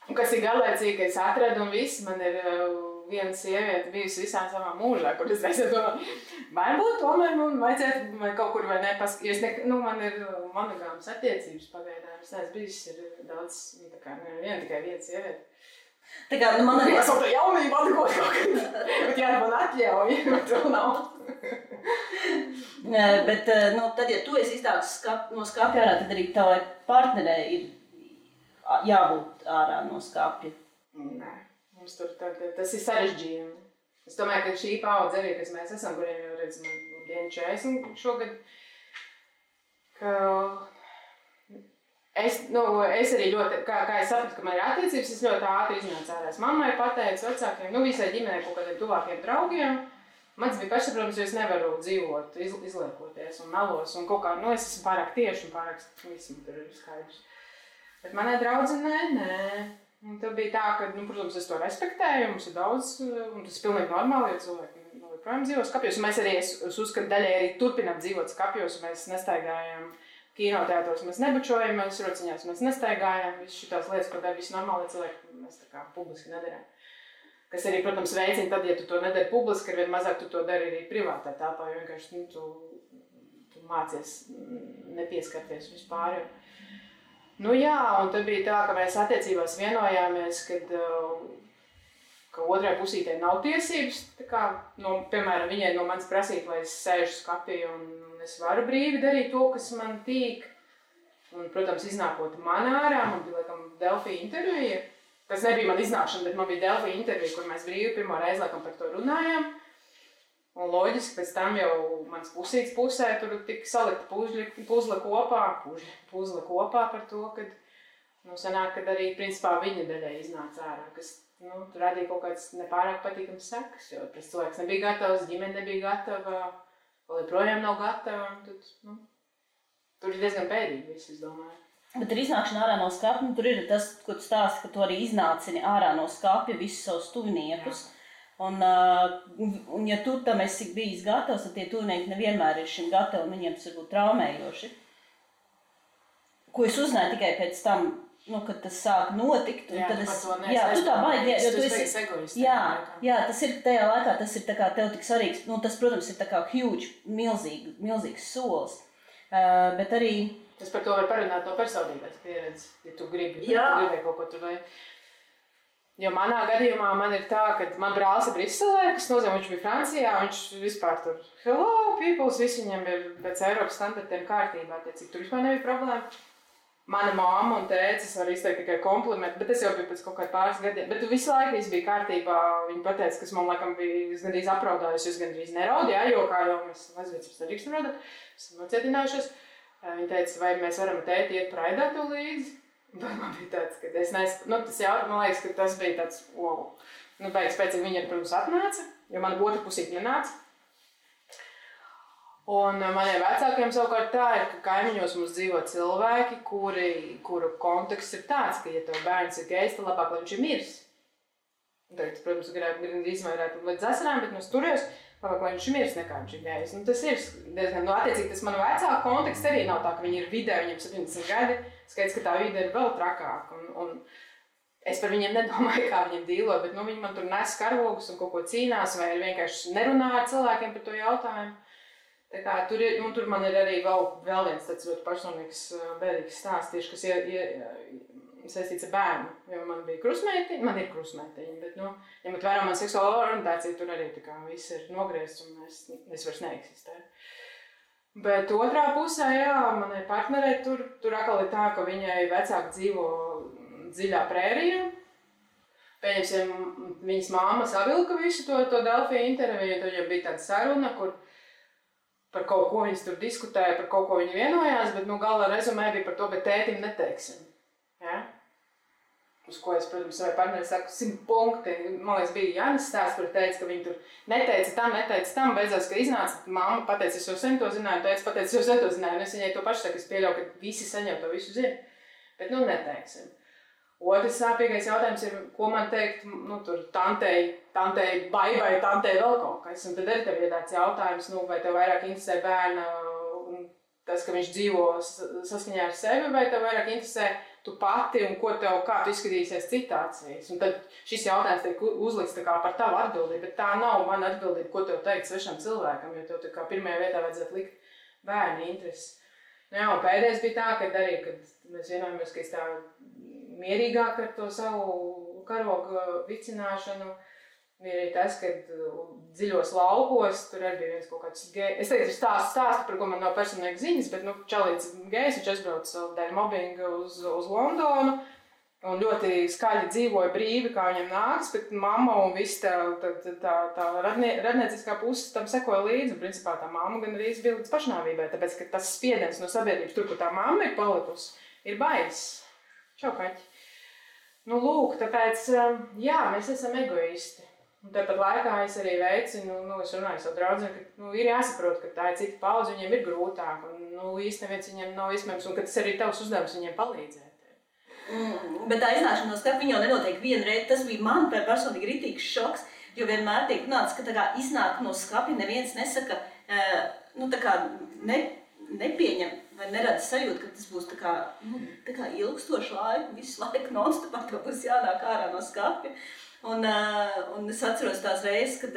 Un kas ir galēcīgi, ka es atradu un viss, man ir viena sieviete bijusi visā savā mūžā, kur es reizē domāju, varbūt tomēr man vajadzētu vai kaut kur vai nepaskatīt. Man ir monogāmas attiecības pagaidām. Es neesmu bijusi daudz, tikai viena sieviete. Tā kā, man arī... Es vēl tā jaunību atgūt kaut kad, bet man atļauj, bet vēl nav. Bet, tad, ja tu esi iznācis no skapja ārā, tad arī tavai partnerei ir jābūt ārā no skapja. Nē. Mums tur tas ir sarežģījumi. Es domāju, ka šī paudze arī, kas mēs esam, kuriem jau redz, man dienu 40 šogad, ka es arī ļoti, kā es sapratu, ka man ir attiecības, es ļoti ātri iznācu ārā. Es mammai pateicu, vecākiem, visai ģimenei kaut kādiem tuvākiem draugiem. Mans bija pašsaprotams, jo es nevaru dzīvot, izliekoties un melos un kaut kā, es esmu pārāk tieši un pārāk visam tur ir skaidrs. Bet manai draudzenei, nē. Un tad bija tā, ka, protams, es to respektēju, mums ir daudz, un tas ir pilnīgi normāli, jo cilvēki joprojām dzīvo skapjos. Un mēs arī, es uzskatu, daļai arī turpinām dzīvot skapjos, un mēs nestaigājam kinoteātros, mēs nebučojamies, rociņās mēs nestaigājam, visas šitās lietas, ko dara visi normāli cilvēki, mēs tā kā publiski nedarām. Kas arī, protams, veicina tad, ja tu to nedari publiski, ar vien mazāk tu to dari arī privātā tāpā, jo vienkārši, tu mācies nepieskarties vispār. Jā, un tad bija tā, ka mēs attiecībās vienojāmies, ka otrai pusītei nav tiesības, piemēram, viņai no manis prasīt, lai es sēžu skapī un es varu brīvi darīt to, kas man tīk. Un, protams, iznākot man ārā, man bija, laikam, Delfija intervija. Tas nebija man iznākšana, bet man bija Delfija intervija, kur mēs brīvi pirmo reizi, laikam, par to runājām. Un loģiski, pēc tam jau mans pusīts pusē tur tika salikta puzle kopā par to, kad, sanāk, kad arī, principā, viņa daļai iznāca ārā, kas, tur radīja kaut kāds nepārāk patīkams sekas, jo tas cilvēks nebija gatavs, ģimene nebija gatava, vēl joprojām nav gatava, un tad, tur ir diezgan bēdīgi viss, es domāju. Bet ar iznākšanu ārā no skapja, tur ir tas, ko tu stāsti, ka tu arī iznācini ārā no skapja visus savus tuviniekus. Jā. Un ja tu tam esi bijis gatavs, tad tie tuvinieki nevienmēr ir šim gatavi un viņiem tas var būt traumējoši. Ko es uzzināju tikai pēc tam, kad tas sāk notikt. Jā, tad par to tu tā baigi, jo tu esi egoisti. Jā, tas ir tajā laikā, tas ir tā kā tev tik svarīgs, tas, protams, ir tā kā huge, milzīgs solis, bet arī... Tas par to var parunāt no personības pieredzes, ja tu gribēji kaut ko tur vai... Jo manā gadījumā man ir tā, ka man brālis ir Briselē, kas nozīmē, viņš bija Francijā, viņš vispār tur, hello, peoples, visi viņam ir pēc Eiropas standartiem kārtībā, cik tur vispār nebija problēma. Mana mamma un tēcis var izteikt tikai komplimentu, bet tas jau bija pēc kaut kādā pāris gadiem. Bet visu laiku viss bija kārtībā. Viņa pateica, kas man laikam bija gandrīz apraudājusi, es gandrīz neraudu, jo kā jau mēs mazvīcības nedrīkstam raudāt, esam nocietinājušies. Viņa teica, vai mēs varam tēti iet praidātu līdzi. Bet man bija tāds, ka es nesaku, tas jau, man liekas, ka tas bija tāds, wow. Pēc viņa, protams, atnāca, jo mana otra pusīte nenāca. Un maniem vecākiem savukārt tā ir, ka kaimiņos mums dzīvo cilvēki, kuru konteksts ir tāds, ka, ja tev bērns ir gejs, tad labāk, lai viņš ir miris. Tagad, protams, gribētu izvairēt līdz asarām, bet es turējos, labāk, lai viņš ir miris nekā viņš ir gejs. Tas ir diezgan, attiecīgi, tas manu vecāku konteksts arī nav tā, ka viņi ir vidē, viņiem 70 gadi, skaidrs, ka tā vide ir vēl trakāka. Un es par viņiem nedomāju, kā viņiem dīlot, bet viņi man tur nes karogus un kaut ko cīnās, vai vienkārši nerunā ar cilvēkiem par to jautājumu. Tā kā tur man ir arī vēl viens tāds ļoti personīgs, bēdīgs stāsts, tieši, kas saistīts ar bērnu. Jo man ir krustmeitiņa, bet, ņemot vērā man seksuālo orientāciju, tur arī tā kā viss ir nogriezts un es vairs neeksistēju. Bet otrā pusē, manai partnerei tur atkal ir tā, ka viņai vecāki dzīvo dziļā prērijā. Pieņemsim, viņas māma savilka visu to Delfija interviju, tad jau bija tāda saruna, kur par kaut ko viņas tur diskutēja, par kaut ko viņi vienojās, bet gala rezumē bija par to, bet tētim neteiksim. Ja? Uz ko es, protams, savai partneri saku 100 punkti. Man liekas, bija Jānis stāsts, kur teica, ka viņi tur neteica tam, beidzās, ka iznāca, mamma pateica, es jau sen to zināju, teica, pateica, es jau sen to zināju, un es viņai to pašu saku, es pieļauju, ka visi saņem to visu zina, bet neteiksim. Otrs sāpīgais jautājums ir, ko man teikt, tur tantei baibai, tantei vēl kaut kas. Un tad arī tev ir tāds jautājums, vai tev vairāk interesē bērna un tas, ka viņš dzīvo saskaņā ar sevi, vai tev vairāk interesē tu pati un kā tu izskatīsies citācijas. Un tad šis jautājums tiek uzlikts tā kā par tavu atbildību, bet tā nav mana atbildība, ko tev teikt svešam cilvēkam, jo tev tā kā pirmajā vietā vajadzētu likt bērni intereses. Un pēdējais bija tā, kad mēs vienojamies, ka es tā mierīgāk ar to savu karogu vicināšanu. Bija arī tas, ka dziļos laukos, tur arī bija viens kaut kāds gejs. Es teicu, stāstu, par ko man nav personīgi ziņas, bet čalīts gejs, viņš aizbrauca dēļ mobbinga uz Londonu un ļoti skaļi dzīvoja brīvi, kā viņam nāks, bet mamma un viss tā radnieciskā puse tam sekoja līdzi. Un principā tā mamma gan arī bija līdz pašnāvībai, tāpēc, ka tas spiediens no sabiedrības, tur, kur tā mamma ir palikusi, ir baiss. Čau, kaķi. Lūk, tāpēc, mēs esam egoisti. Un tāpat laikā es arī veicinu, es runāju savu draudzeni, ka ir jāsaprot, ka tā ir cita paudze, viņiem ir grūtāk, un īsti neviens viņiem nav iespējams, un ka tas arī tavs uzdevums viņiem palīdzēt. Bet tā iznākšana no skapa viņa jau nenotiek vienreiz, tas bija man personīgi ritīgs šoks, jo vienmēr tiek runāts, ka tā kā iznāk no skapa, neviens nesaka, nepieņem vai nerada sajūtu, ka tas būs tā kā ilgstošu laiku, visu laiku non-stopā, ka būs jānāk ārā no skapja. Un es atceros tās reizes, kad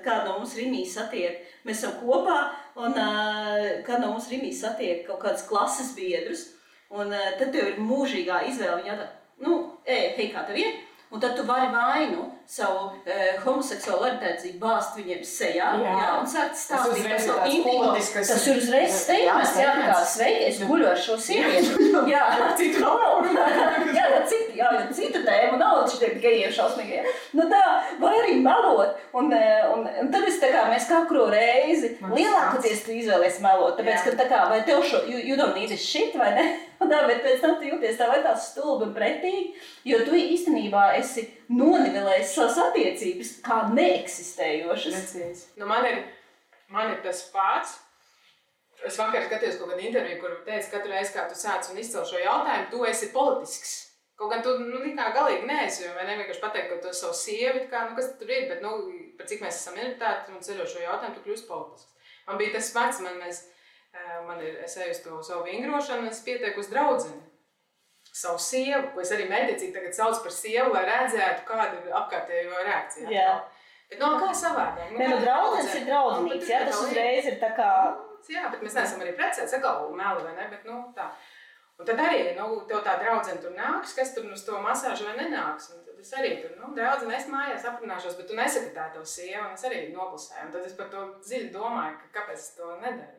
kāda no mums Rimī satiek, mēs esam kopā, un kāda no mums Rimī satiek kaut kādas klases biedrus, un tad tev ir mūžīgā izvēle, viņa jautā, hei, kā tev ir? Un tad tu vari vainu savu homoseksuālu orientāciju bāzt viņiem sejā, un sākt stāstīt par savu intīmo. Tas ir uzreiz steigments, kā sveiki, es guļu ar šo sievieti. Citu tēmu nav šitiem gejiem šausmīgiem. Vai arī melot. Un tad mēs katru reizi lielākoties tu izvēlies melot, tāpēc, ka vai tev šo, you don't need this shit, vai ne? Bet pēc tam tu jūties tā vai tā stulbi un pretīgi, jo tu īstenībā esi nonivelējis savas attiecības kā neeksistējošas. Man ir tas pats. Es vakar skatījos kaut kādu interviju, kur teica, katru reizi, kā tu sāc un izcel šo jautājumu, tu esi politisks. Kaut gan tu kā galīgi neesi, jo vienkārši pateikt, ka tu esi savu sievi, kas tur ir, bet par cik mēs esam minoritāti un ceļo šo jautājumu, tu kļūsi politisks. Man bija tas pats, es eju uz to savu vingrošanu, es pieteiku uz draudzeni. savu sievu, ko es arī mētiecīgi tagad sauc par sievu, lai redzētu, kāda ir apkārtējo reakcija. Jā. Bet kā savādāk? Nē, draudzenes ir draudzenīgs, jā, tas uzreiz ir tā kā... Jā, bet mēs neesam arī precēti, sakal meli vai ne, bet tā. Un tad arī, tev tā draudzene tur nāks, kas tur uz to masāžu vai nenāks. Un tad es arī tur, draudzene, es mājās aprunāšos, bet tu nesaki tā tev sieva, un es arī noklusēju. Un tad es par to dziļi domāju, kāpēc es to nedaru.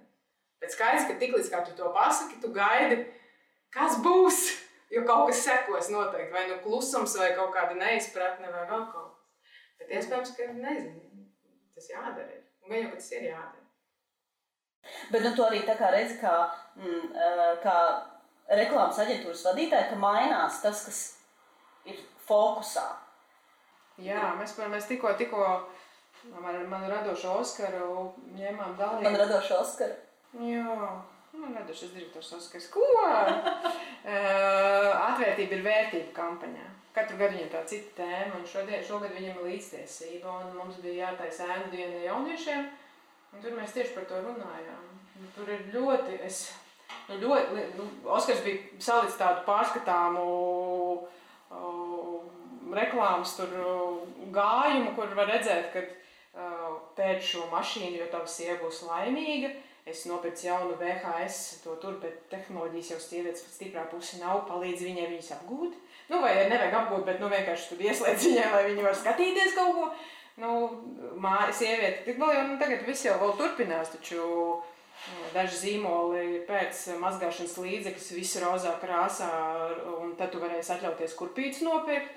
Bet skaidrs, ka tiklīdz kā tu to pasaki, tu gaidi, kas būs, jo kaut kas sekos noteikti, vai klusums, vai kaut kāda neizpratne, vai vēl kaut kas. Bet iespējams, ka nezinu, tas jādara. Un gan jau, ka tas ir jādara. Bet tu arī tā kā redzi, kā reklāmas aģentūras vadītāji, ka mainās tas, kas ir fokusā. Jā, mēs tikko man radošo Oskaru ņēmām dalību. Man radošo Oskaru? Jā, man radošais direktors Oskars. Ko? Atvērtība ir vērtība kampaņā. Katru gadu viņam tā cita tēma, un šogad viņam ir līdztiesība, un mums bija jātaisa ēnu diena jauniešiem, un tur mēs tieši par to runājām. Tur ir ļoti, Oskars bija salicis tādu pārskatāmu reklāmas tur gājumu, kur var redzēt, ka pēc šo mašīnu, jo tava sieva būs laimīga, es nopircu jaunu VHS, to tur, bet tehnoloģijas jau sievietes stiprā pusi nav, palīdz viņai viņas apgūt. Vai nevajag apgūt, bet vienkārši tur ieslēdz viņai, lai viņi var skatīties kaut ko. Sieviete, tik vēl jau tagad viss jau vēl turpinās, taču daži zīmoli pēc mazgāšanas līdzekļus visu rozā krāsā, un tad tu varēsi atļauties kurpītes nopirkt,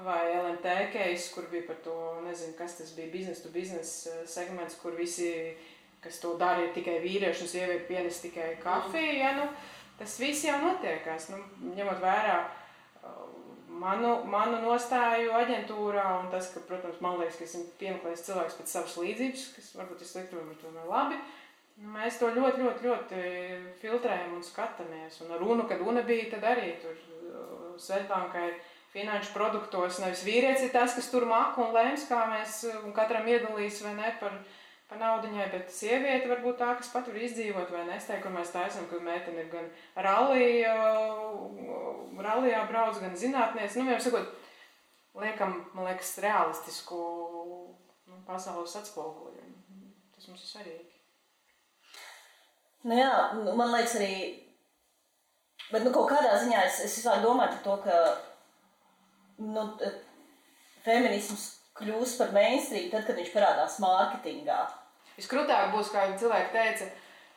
vai LMT case, kur bija par to, nezinu, kas tas bija, business to business segments, kur visi, kas to dara, ir tikai vīrieši un sievieti pienes tikai kafiju, ja, tas viss jau notiekās, ņemot vērā manu nostāju aģentūrā, un tas, ka, protams, man liekas, ka esmu piemeklējis cilvēks pēc savas līdzības, kas varbūt ir slikti, varbūt tomēr labi. Mēs to ļoti filtrējam un skatāmies. Un runa, kad runa bija, tad arī tur Svetbankai finanšu produktos nevis vīrietis ir tas, kas tur maka un lēms, kā mēs katram iedalīs vai ne par naudiņai, bet sieviete varbūt tā, kas pat var izdzīvot vai ne. Es teiktu, kur mēs taisam, ka meitene ir gan rallijā brauc, gan zinātniece. Vienmēr sakot, liekam, man liekas, realistisku pasaules atspoguļojumu. Tas mums ir svarīgi. Jā, man liekas arī, bet kaut kādā ziņā es vispār domāju par to, ka feminisms kļūs par mainstream tad, kad viņš parādās mārketingā. Viskrūtāk būs, kā cilvēki teica,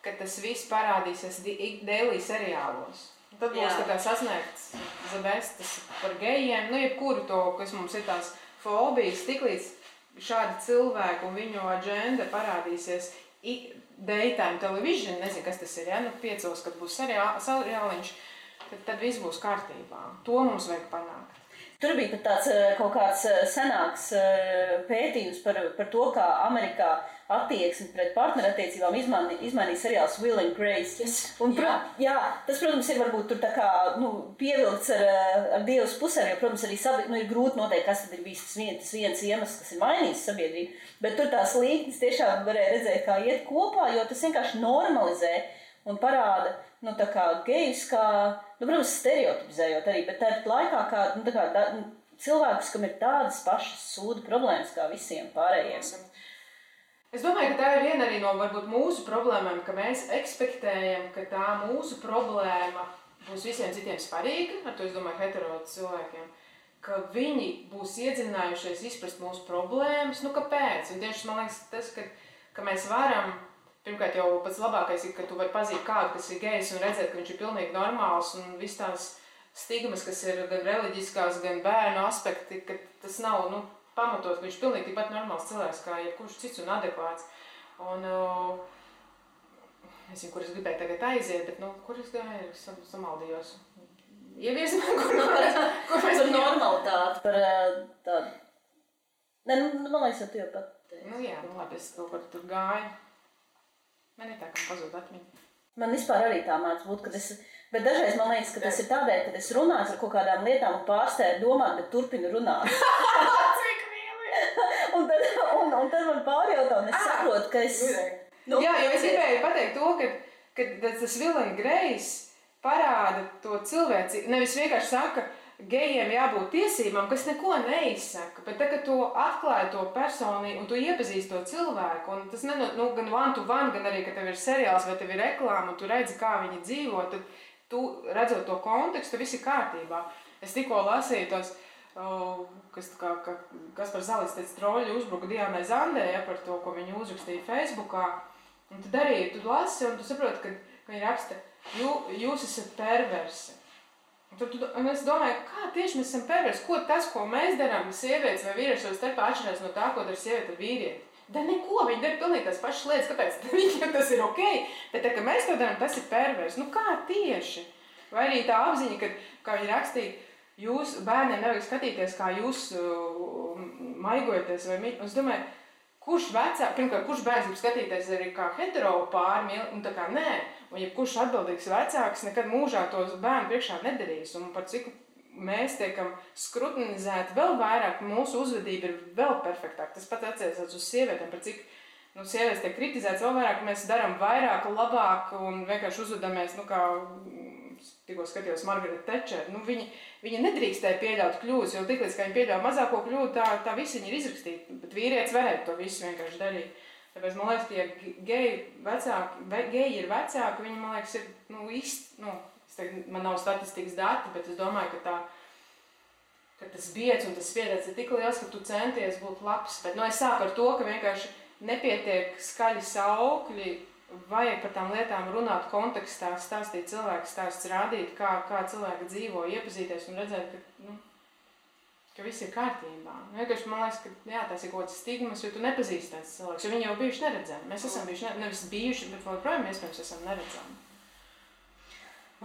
ka tas viss parādīsies daily seriālos. Tad būs tā kā sasniegts zabestas par gejiem, jebkuru to, kas mums ir tās fobijas, tiklīdz šādi cilvēki un viņu agenda parādīsies daytime television, nezinu, kas tas ir, 5, kad būs seriāliņš, tad viss būs kārtībā. To mums vajag panākt. Tur bija pat tāds kaut kāds senāks pētījums par to, kā Amerikā attieksmi pret partnerattiecībām izmainīja seriāls Will and Grace. Yes. Un, tas, protams, ir varbūt tur tā kā pievilkts ar Dievas pusēm, jo, protams, arī ir grūti noteikt, kas tad ir bijis tas viens iemesls, kas ir mainījis sabiedrību. Bet tur tās līknes tiešām varēja redzēt, kā iet kopā, jo tas vienkārši normalizē un parāda, tā kā gejus, kā, protams, stereotipizējot arī, bet tāpat laikā kā cilvēkus, kam ir tādas pašas sūdu problēmas kā visiem pārējiem. Es domāju, ka tā ir viena arī no varbūt mūsu problēmām, ka mēs ekspektējam, ka tā mūsu problēma būs visiem citiem svarīga, ar to es domāju hetero cilvēkiem, ka viņi būs iedziļinājušies izprast mūsu problēmas, kāpēc? Un tieši man liekas tas, ka mēs varam, pirmkārt jau pats labākais ir, ka tu vari pazīt kādu, kas ir gejs un redzēt, ka viņš ir pilnīgi normāls un viss tās stigmas, kas ir gan reliģiskās, gan bērnu aspekti, ka tas nav, pamatot, ka viņš pilnīgi tikpat normāls cilvēks, kā jebkurš cits un adekvāts. Un, nezinu, kur es gribēju tagad aiziet, bet, kur es gāju, samaldījos. Ievies man, kur mēs par normalitāti, par tādu. Nē, man liekas, tu jau pat teici. Jā, labi, es kaut kur tur gāju. Man ir tā, ka man pazūd atmiņa. Man vispār arī tā māc būt, bet dažreiz man liekas, ka tas ir tādēļ, kad es runāju par kaut kādām lietām un pārstāju domāt, bet turpinu runāt. Cik mīli! un tad man pārjautā, un es saprotu, ka es... Jā, jo es gribēju pateikt to, ka tas Will and Grace parāda to cilvēci. Nevis vienkārši saka, gejiem jābūt tiesībām, kas neko neizsaka, bet tagad tu atklāji to personību un tu iepazīsti to cilvēku. Un tas gan one to one, gan arī, ka tev ir seriāls vai tev ir reklāma un tu redzi, kā viņi dzīvo, tad tu redzot to kontekstu, viss ir kārtībā. Es tikko lasīju tos, kas par Zalis teica, troļi uzbruka Diānai Zandē, par to, ko viņi uzrakstīja Facebookā. Un tad arī tu lasi un tu saproti, ka viņi raksta, jūs esat perversi. Un es domāju, kā tieši mēs esam perversi? Ko tas, ko mēs darām, sievietes vai vīrieši savā starpā atšķirās no tā, ko dara sieviete ar vīrieti? Da neko, viņi dara pilnīgi tās pašas lietas, kāpēc viņiem tas ir okei, bet tā, ka mēs to darām, tas ir perversi. Nu kā tieši? Vai arī tā apziņa, ka, kā viņi rakstīja, jūs bērniem nevajag skatīties, kā jūs maigojaties vai mīļ. Un es domāju, kurš bērns grib skatīties arī kā hetero pāri, un tā kā nē. Un jebkurš atbildīgs vecāks nekad mūžā tos bērnu priekšā nedarīs. Un par cik mēs tiekam skrutinizēti vēl vairāk, mūsu uzvedība ir vēl perfektāka. Tas pat attiecās uz sievietēm, par cik sievietes tiek kritizētas vēl vairāk, mēs darām vairāk, labāk un vienkārši uzvedamies, kā tikko skatījos Margaret Thatcher. Viņa nedrīkstēja pieļaut kļūdas, jo tiklīdz, kā viņa pieļauj mazāko kļūdu, tā visi viņa ir izrakstīta. Bet vīrietis varētu to visu vienkārši darīt. Tāpēc man liekas, ka ja geji ir vecāki, viņi, man liekas, ir, man nav statistikas dati, bet es domāju, ka tas biedz un tas spiediens ir tik liels, ka tu centies būt labs. Bet es sāku ar to, ka vienkārši nepietiek skaļi saukļi, vajag par tām lietām runāt kontekstā, stāstīt cilvēku stāsts, rādīt, kā cilvēki dzīvo, iepazīties un redzēt, ka viss ir kārtībā. Vienkārši man liekas, ka tas ir kaut kāds stigmas, jo tu nepazīsti tāds cilvēks, jo viņi jau bijuši neredzami. Mēs esam bijuši, nevis bijuši, bet joprojām iespējams esam neredzami.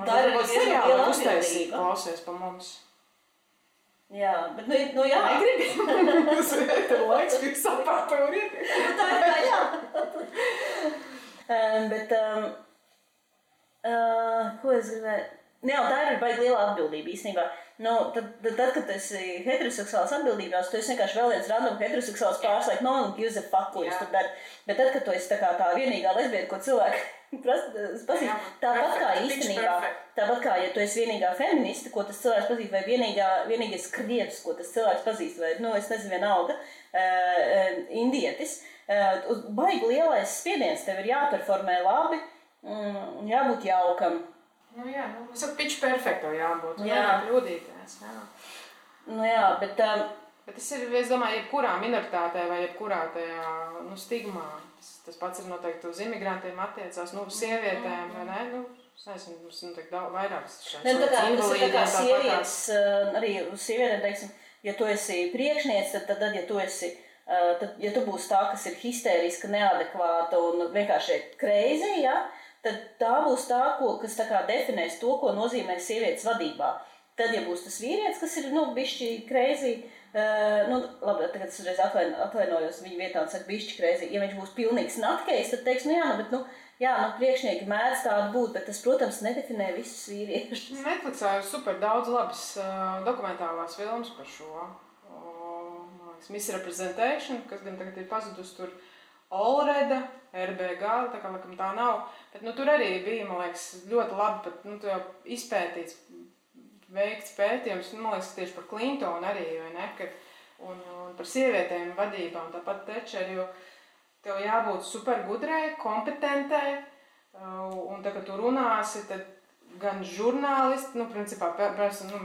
Tā ir arī seriāli uztaisīt, klausies pa mums. Jā, bet jā. Negribi? Tev laiks bija sapāta un iet. Tā ir jā. Bet, ko es gribēju? Jā, tā ir baigi liela atbildība īstenībā. Tad, kad tu esi heteroseksuāls atbildībās, tu esi vienkārši vēl viens random heteroseksuāls pārs, like, no one gives a fuck, ko jūs tur dari. Bet tad, kad tu esi tā vienīgā lesbieta, ko cilvēki pasīst, tāpat kā īstenībā, tāpat kā, ja tu esi vienīgā feministe, ko tas cilvēks pazīst, vai vienīgais krievs, ko tas cilvēks pazīst, vai, es nezinu, vienalga, indietis, baigi lielais spiediens, tev ir jāperformē labi, jābūt jaukam. Es saku, pitch perfekto jābūt, nevar kļūdīties. Bet tas ir, es domāju, jebkurā minoritātē vai jebkurā tajā, stigmā. Tas pats ir noteikti uz imigrantiem attiecās, sievietēm, vai ne? Es nezinu, mums noteikti vairākas šāds. Tas ir tā kā sievietes, arī uz sievietēm, teiksim, ja tu esi priekšniece, tad ja tu esi, ja tu būsi tā, kas ir histēriska, neadekvāta un vienkārši crazy, tad tā būs tā, kas tā kā definēs to, ko nozīmē sievietes vadībā. Tad, ja būs tas vīrietis, kas ir, bišķi crazy, labi, tagad es uzreiz atvainojos viņa vietā un saku bišķi crazy, ja viņš būs pilnīgs nutcase, tad teiks, priekšnieki mēdz tādu būt, bet tas, protams, nedefinē visus vīriešus. Netflixā ir super daudz labas dokumentālās filmas par šo. Misrepresentation, kas gan tagad ir pazudus tur Olreda, RBG, tā kā laikam tā nav, bet tur arī bija, man liekas, ļoti labi pat, jau izpētīts, veikts pētījums, man liekas, tieši par Clintonu arī, vai ne, un par sievietēm vadībā, un tāpat Thatcher, jo tev jābūt super gudrai, kompetentai, un tā, kad tu runāsi, tad gan žurnālisti, principā,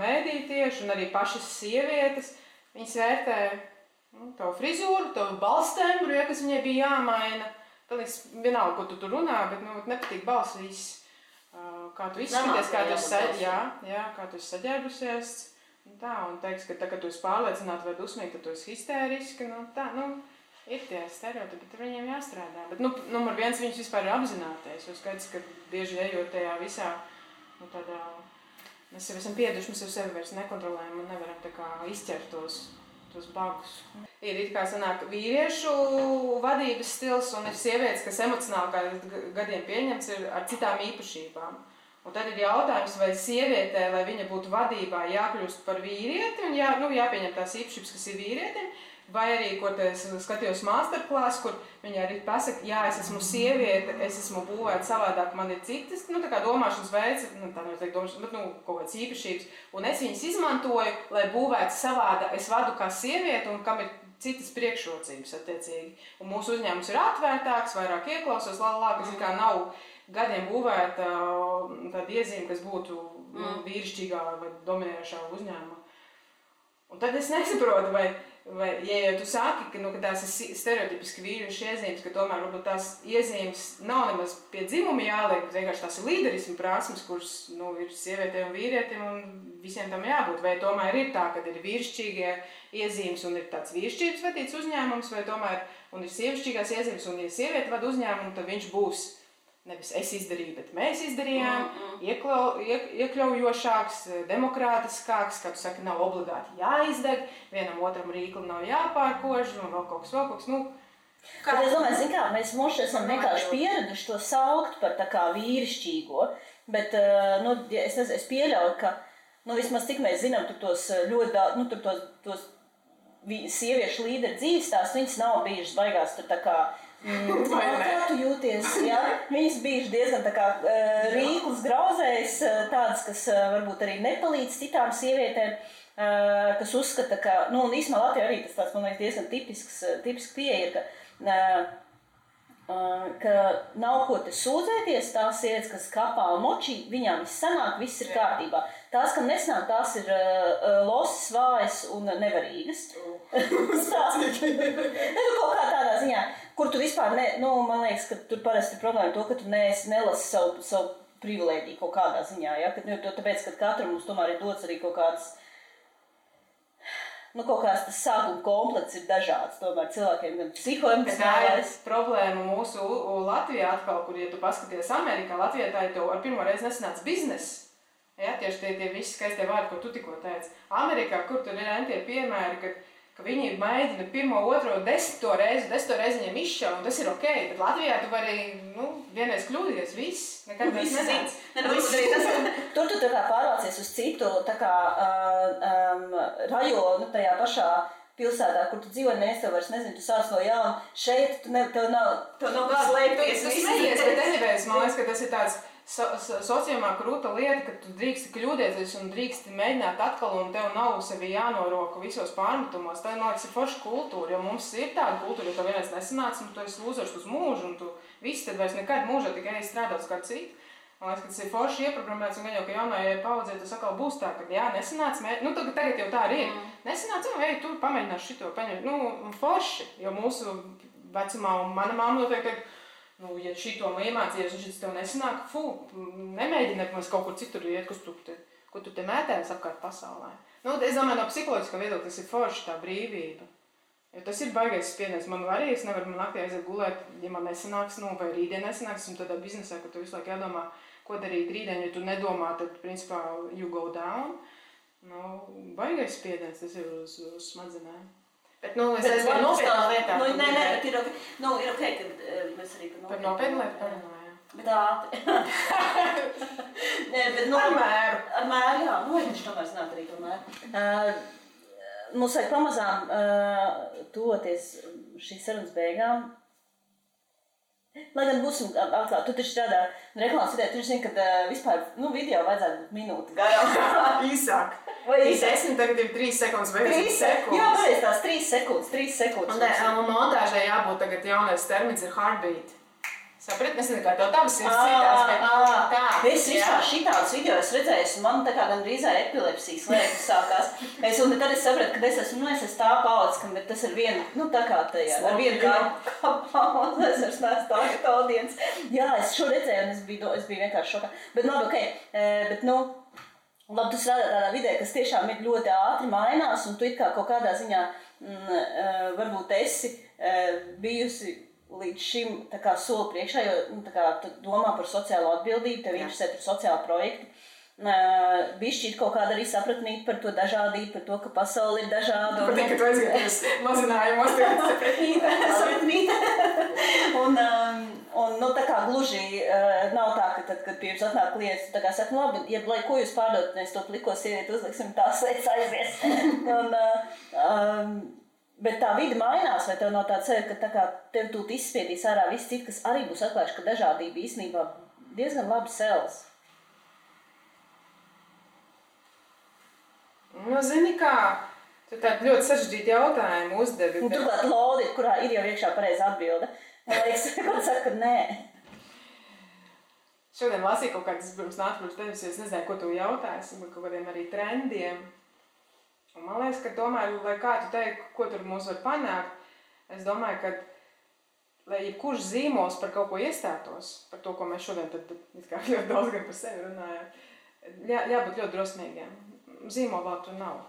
mēdī tieši, un arī pašas sievietes, viņas vērtē tavu frizūru, tavu balstembru, kas viņai bija jāmaina. Tad vienalga, ko tu tur runā, bet nepatīk balss viss. Kā tu izskaties, kā tu esi saģērbusies. Un teiks, ka tā, kad tu esi pārliecināta vai dusmīga, tad tu esi histēriska. Ir tie stereotipi, bet viņiem jāstrādā. Bet numur viens viņus vispār ir apzināties. Jo skaidrs, ka bieži ejot tajā visā, tādā, mēs jau esam pieduši, mēs jau sevi vairs nekontrolējam un nevaram tā kā izķert tos bagus. Ir it kā sanāk vīriešu vadības stils un ir sievietes, kas emocionāli kā gadiem pieņemts ir ar citām īpašībām. Un tad ir jautājums, vai sievietē, lai viņa būtu vadībā, jākļūst par vīrieti un jāpieņem tās īpašības, kas ir vīrietim, Vai arī, ko es skatījos masterclass, kur viņi arī pasaka, jā, es esmu sieviete, es esmu būvēta savādāk, man ir citas, tā kā domāšanas veids, tā nevajag domāšanas, bet, kaut kādas īpašības, un es viņas izmantoju, lai būvētu savādāk, es vadu kā sieviete, un kam ir citas priekšrocības, attiecīgi. Un mūsu uzņēmums ir atvērtāks, vairāk ieklausos, kas kā nav gadiem būvēta tāda iezīme, kas būtu vīrišķīgā vai dominējošā uzņēmuma. Un tad es nesaprotu, vai ja tu saki, ka tās ir stereotipiski vīriešu iezīmes, ka tomēr varbūt tās iezīmes nav nemaz pie dzimuma jāliek, bet vienkārši tās ir līderismu prasmes, kuras ir sievietēm un vīrietim, un visiem tam jābūt. Vai tomēr ir tā, ka ir vīrišķīgie iezīmes un ir tāds vīrišķības vadīts uzņēmums, vai tomēr un ir sievišķīgās iezīmes, un ja sieviete vada uzņēmumu, tad viņš būs nevis es izdarīju, bet mēs izdarījām, iekļaujošāks, demokrātiskāks, kā tu saki, nav obligāti jāizdeg, vienam otram rīkli nav jāpārkož, un vēl kaut kas. Bet es domāju, zin kā, mēs esam vienkārši pieraduši to saukt par tā kā vīrišķīgo, bet es pieļauju, ka vismaz tik mēs zinām, tur tos ļoti daudz, tos sieviešu līderu dzīves tās, viņas nav bijušas baigās tur tā kā kā tu jūties, jā? Viņas bijuši diezgan tā kā rīklis grauzējs, tādas, kas varbūt arī nepalīdz citām sievietēm, kas uzskata, ka, un īsumā Latvijā arī tas tāds, man liekas, diezgan tipiski pieeja ir, ka nav ko te sūdzēties, tās sievietes, kas kapā un močī, viņām viss sanāk, viss ir kārtībā. Tās, kam nesanāk, tās ir losas, vājas un nevarīgas. Kaut kā tādā ziņā, kur tu vispār, man liekas, ka tur parasti ir problēma to, ka tu nelasi savu privilēģiju kaut kādā ziņā, ja? Tāpēc, ka katram mums tomēr ir dots arī kaut kāds, kaut kāds tas sākuma komplekts ir dažāds, tomēr cilvēkiem gan psihoemocionālais. Tā ir problēma mūsu Latvijā atkal, kur, ja tu paskaties Amerikā, Latvijā tā ir tev ar pirmo reizi nesanāca bizness. Ja, tieši tie visi skaistie vārdi, ko tu tikko teici. Amerikā, kur tur ir tie piemēri, ka viņi mēģina pirmo, otro, desmito reizi viņiem izšauj, un tas ir ok, bet Latvijā tu vari, vienreiz kļūdīties, viss, nekad viss nezināts. Tur tu tā kā pārvācies uz citu, tā kā rajonu tajā pašā pilsētā, kur tu dzīvo, tev vairs nezinu, tu sāc no jauna, šeit tev nav kāds slēpties. Tu smejies, bet anyways, man liekas, ka tas ir tāds sociālā krūta lieta, ka tu drīksti kļūdēties un drīksti mēģināt atkal, un tev nav sevi jānoroka visos pārmetumos. Tā, man liekas, ir forša kultūra, jo mums ir tāda kultūra, jo tev vienreiz nesanāca, un tu esi lūzers uz mūžu, un tu visi tad vairs nekad mūžā tikai strādāt uz kādu citu. Man liekas, ka tas ir forši ieprogrammēts, un gan jau, ka jaunajai paudzei tas atkal būs tā, ka jā, nesanāca, tagad jau tā arī ir. Nesanāca, tu pamēģināšu šito paņemt. Forši, jo mūsu vecumā, un mana mamma noteikti ja šito iemācījies, un šis tev nesanāk, nemēģini mēs kaut kur citur iet, ko tu te mētējies apkārt pasaulē. Es domāju, no psiholoģiskā viedokļa tas ir forši tā brīvība. Jo tas ir baigais spiediens. Man arī, es nevaru naktī aiziet gulēt, ja man nesanāks, vai rītdien nesanāks, un tādā biznesā, ka tu visu laiku jādomā, ko darīt rītdien, ja tu nedomā, tad, principā, you go down. Baigais spiediens, tas ir uz smadzenēm. Bet, es aizvēju nopietnās lietās. Bet ir ok, kad mēs arī par nopietnu lietu parunājām. Bet ātri. Ar mēru. Ar mēru, jā. Viņš tomēr zināt arī to mēru. Mums vajag pamazām toties šīs sarunas beigām. Lai gan būsim atklāt, tu taču strādā reklāmas vidē, tu zini, ka vispār video vajadzētu būt minūti garām. Īsāk. Vai 10, tagad ir 3 sekundes vai 10 sekundes. Jā, pareiz tās 3 sekundes. Un montāžai jābūt tagad jaunais termins ir heartbeat. Saprat, nezinu, kā tev tavas ir citās, bet tā. Es vispār šitādus video esmu redzējis, un man tā kā gan drīzā epilepsijas liekas sākās. Un tad es sapratu, ka es esmu tā paudze, bet tas ir viena, tā kā tajā, ar vienu kā paudze, es vairs neesmu tā, ka tā audiens. Jā, es šo redzēju, un es biju vienkārši šokā. Bet labi, ok, labi, tu strādā tādā vidē, kas tiešām ir ļoti ātri mainās, un tu it kā kaut kādā ziņā varbūt esi bijusi līdz šim tā kā soli priekšā, jo tā kā tu domā par sociālo atbildību, tev interesē par sociālu projektu. Bišķi ir kaut kāda arī sapratnīt par to dažādību, par to, ka pasauli ir dažāda. Patīk, ka tu aizgājies mazinājumos. Sapratnīt. Un tā kā gluži nav tā, ka tad, kad pie jums atnāk klients, tā kā saka, labi, ja lai ko jūs pārdot, mēs to pliko sievieti uzliksim, tās lietas aizies. Bet tā vide mainās, vai tev nav tāds sajūta, ka tā kā tev tūt izspiedīs ārā viss citi, kas arī būs atklājuši, ka dažādība īstenībā diezgan labi selas? Nu, zini kā, tu tādu ļoti sarežģītu jautājumu uzdevi. Un turklāt lodi, kurā ir jau iekšā pareiza atbilde. Man liekas, kad saka, ka nē. Šodien lasīju kaut kādas, pirms nāc pirms tevis, jo es nezināju, ko tu jautāsi, bet kaut kādiem arī trendiem. Un man liekas, ka domāju, lai kā tu teiktu, ko tur mums var panākt, es domāju, ka, lai jebkurš zīmols par kaut ko iestātos, par to, ko mēs šodien tad ļoti daudz gan par sevi runājam, jābūt ļoti drosmīgiem. Zīmola vēl tur nav.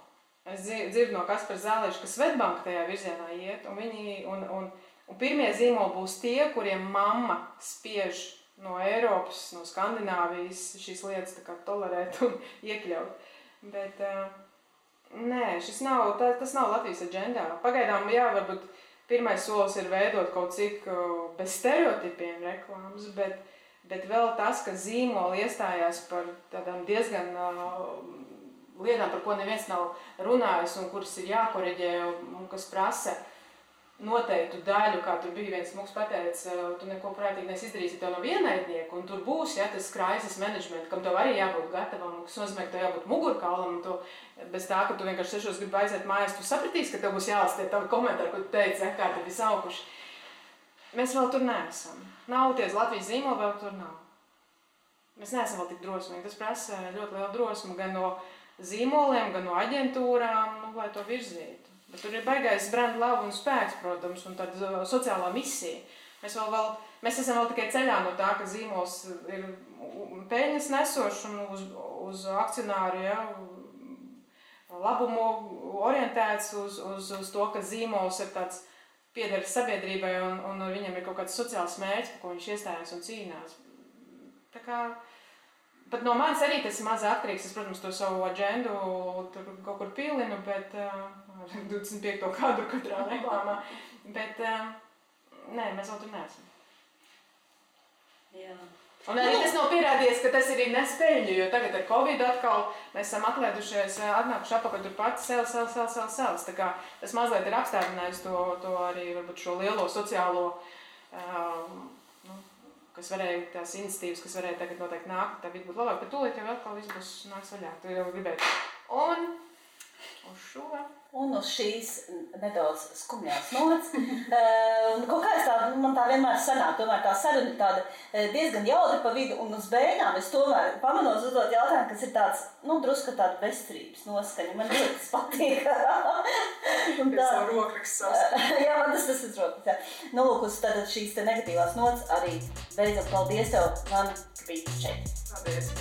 Es dzirdu no Kaspara Zālieša, ka Svetbanka tajā virzienā iet, un pirmie zīmoli būs tie, kuriem mamma spiež no Eiropas, no Skandināvijas šīs lietas tā kā tolerēt un iekļaut. Bet nē, tas nav Latvijas aģendā. Pagaidām, jā, varbūt pirmais solis ir veidot kaut cik bez stereotipiem reklāmas, bet vēl tas, ka zīmoli iestājās par tādām diezgan lietām, par ko neviens nav runājis un kuras ir jākoreģē un kas prasa noteiktu daļu, kā tur bija viens mūks pateica, tu neko prātīgi izdarīsi, tev nav vienaidnieku, un tur būs, ja, tas crisis management, kam tev arī jābūt gatavam, kas nozīmē, ka tev jābūt mugurkaulam, un tu, bez tā, ka tu vienkārši 6 gribi aiziet mājās, tu sapratīsi, ka tev būs jālasa tie tavi komentāri, ko tu teici, ja, kā tad ir saukuši. Mēs vēl tur neesam. Nav ties Latvijas zīmoli, vēl tur nav. Mēs neesam vēl tik drosmīgi. Tas prasa ļoti lielu drosmu gan no zīmoliem, gan no aģentūrām, lai to virzītu. Bet tur ir baigais brand love un spēks, protams, un tāda sociālā misija. Mēs esam vēl tikai ceļā no tā, ka zīmols ir peļņas nesošs un uz akcionāru, ja, labumu orientēts, uz to, ka zīmols ir tāds pieder sabiedrībai un viņam ir kaut kāds sociāls mērķis, par ko viņš iestājās un cīnās. Tā kā pat no manis arī tas ir maz atkarīgs. Es, protams, to savu aģendu tur kaut kur pilinu, bet 25. kadru katrā reklāmā. Bet nē, mēs vēl tur neesam. Jā. Un arī tas nav pierādījies, ka tas ir nespēļņu, jo tagad ar Covid atkal mēs esam atlēdušies, atnākuši apakaļ tur pati sēles. Tā kā tas mazliet ir apstādinājis to arī varbūt šo lielo sociālo kas varēja, tās iniciatīvas, kas varēja tagad noteikti nākt, tā vidi būtu labāk, bet tūlīt jau atkal viss būs nāks vaļā, tu jau gribētu. Un uz šo. Un uz šīs nedaudz skumjās nots. Kaut kā man tā vienmēr sanāk, tomēr tā saruna tāda diezgan jautri pa vidu, un uz beigām es tomēr pamanos uzdot jautājumu, kas ir tāds, drusku tāda bezcerības noskaņa. Man ļoti tas patīk. Pēc savu rokrakstu savs. Jā, man tas ir rokraksts, jā. Lūk, uz tātad šīs te negatīvās nots arī beidzam. Paldies tev, man, ka biji šeit. Paldies.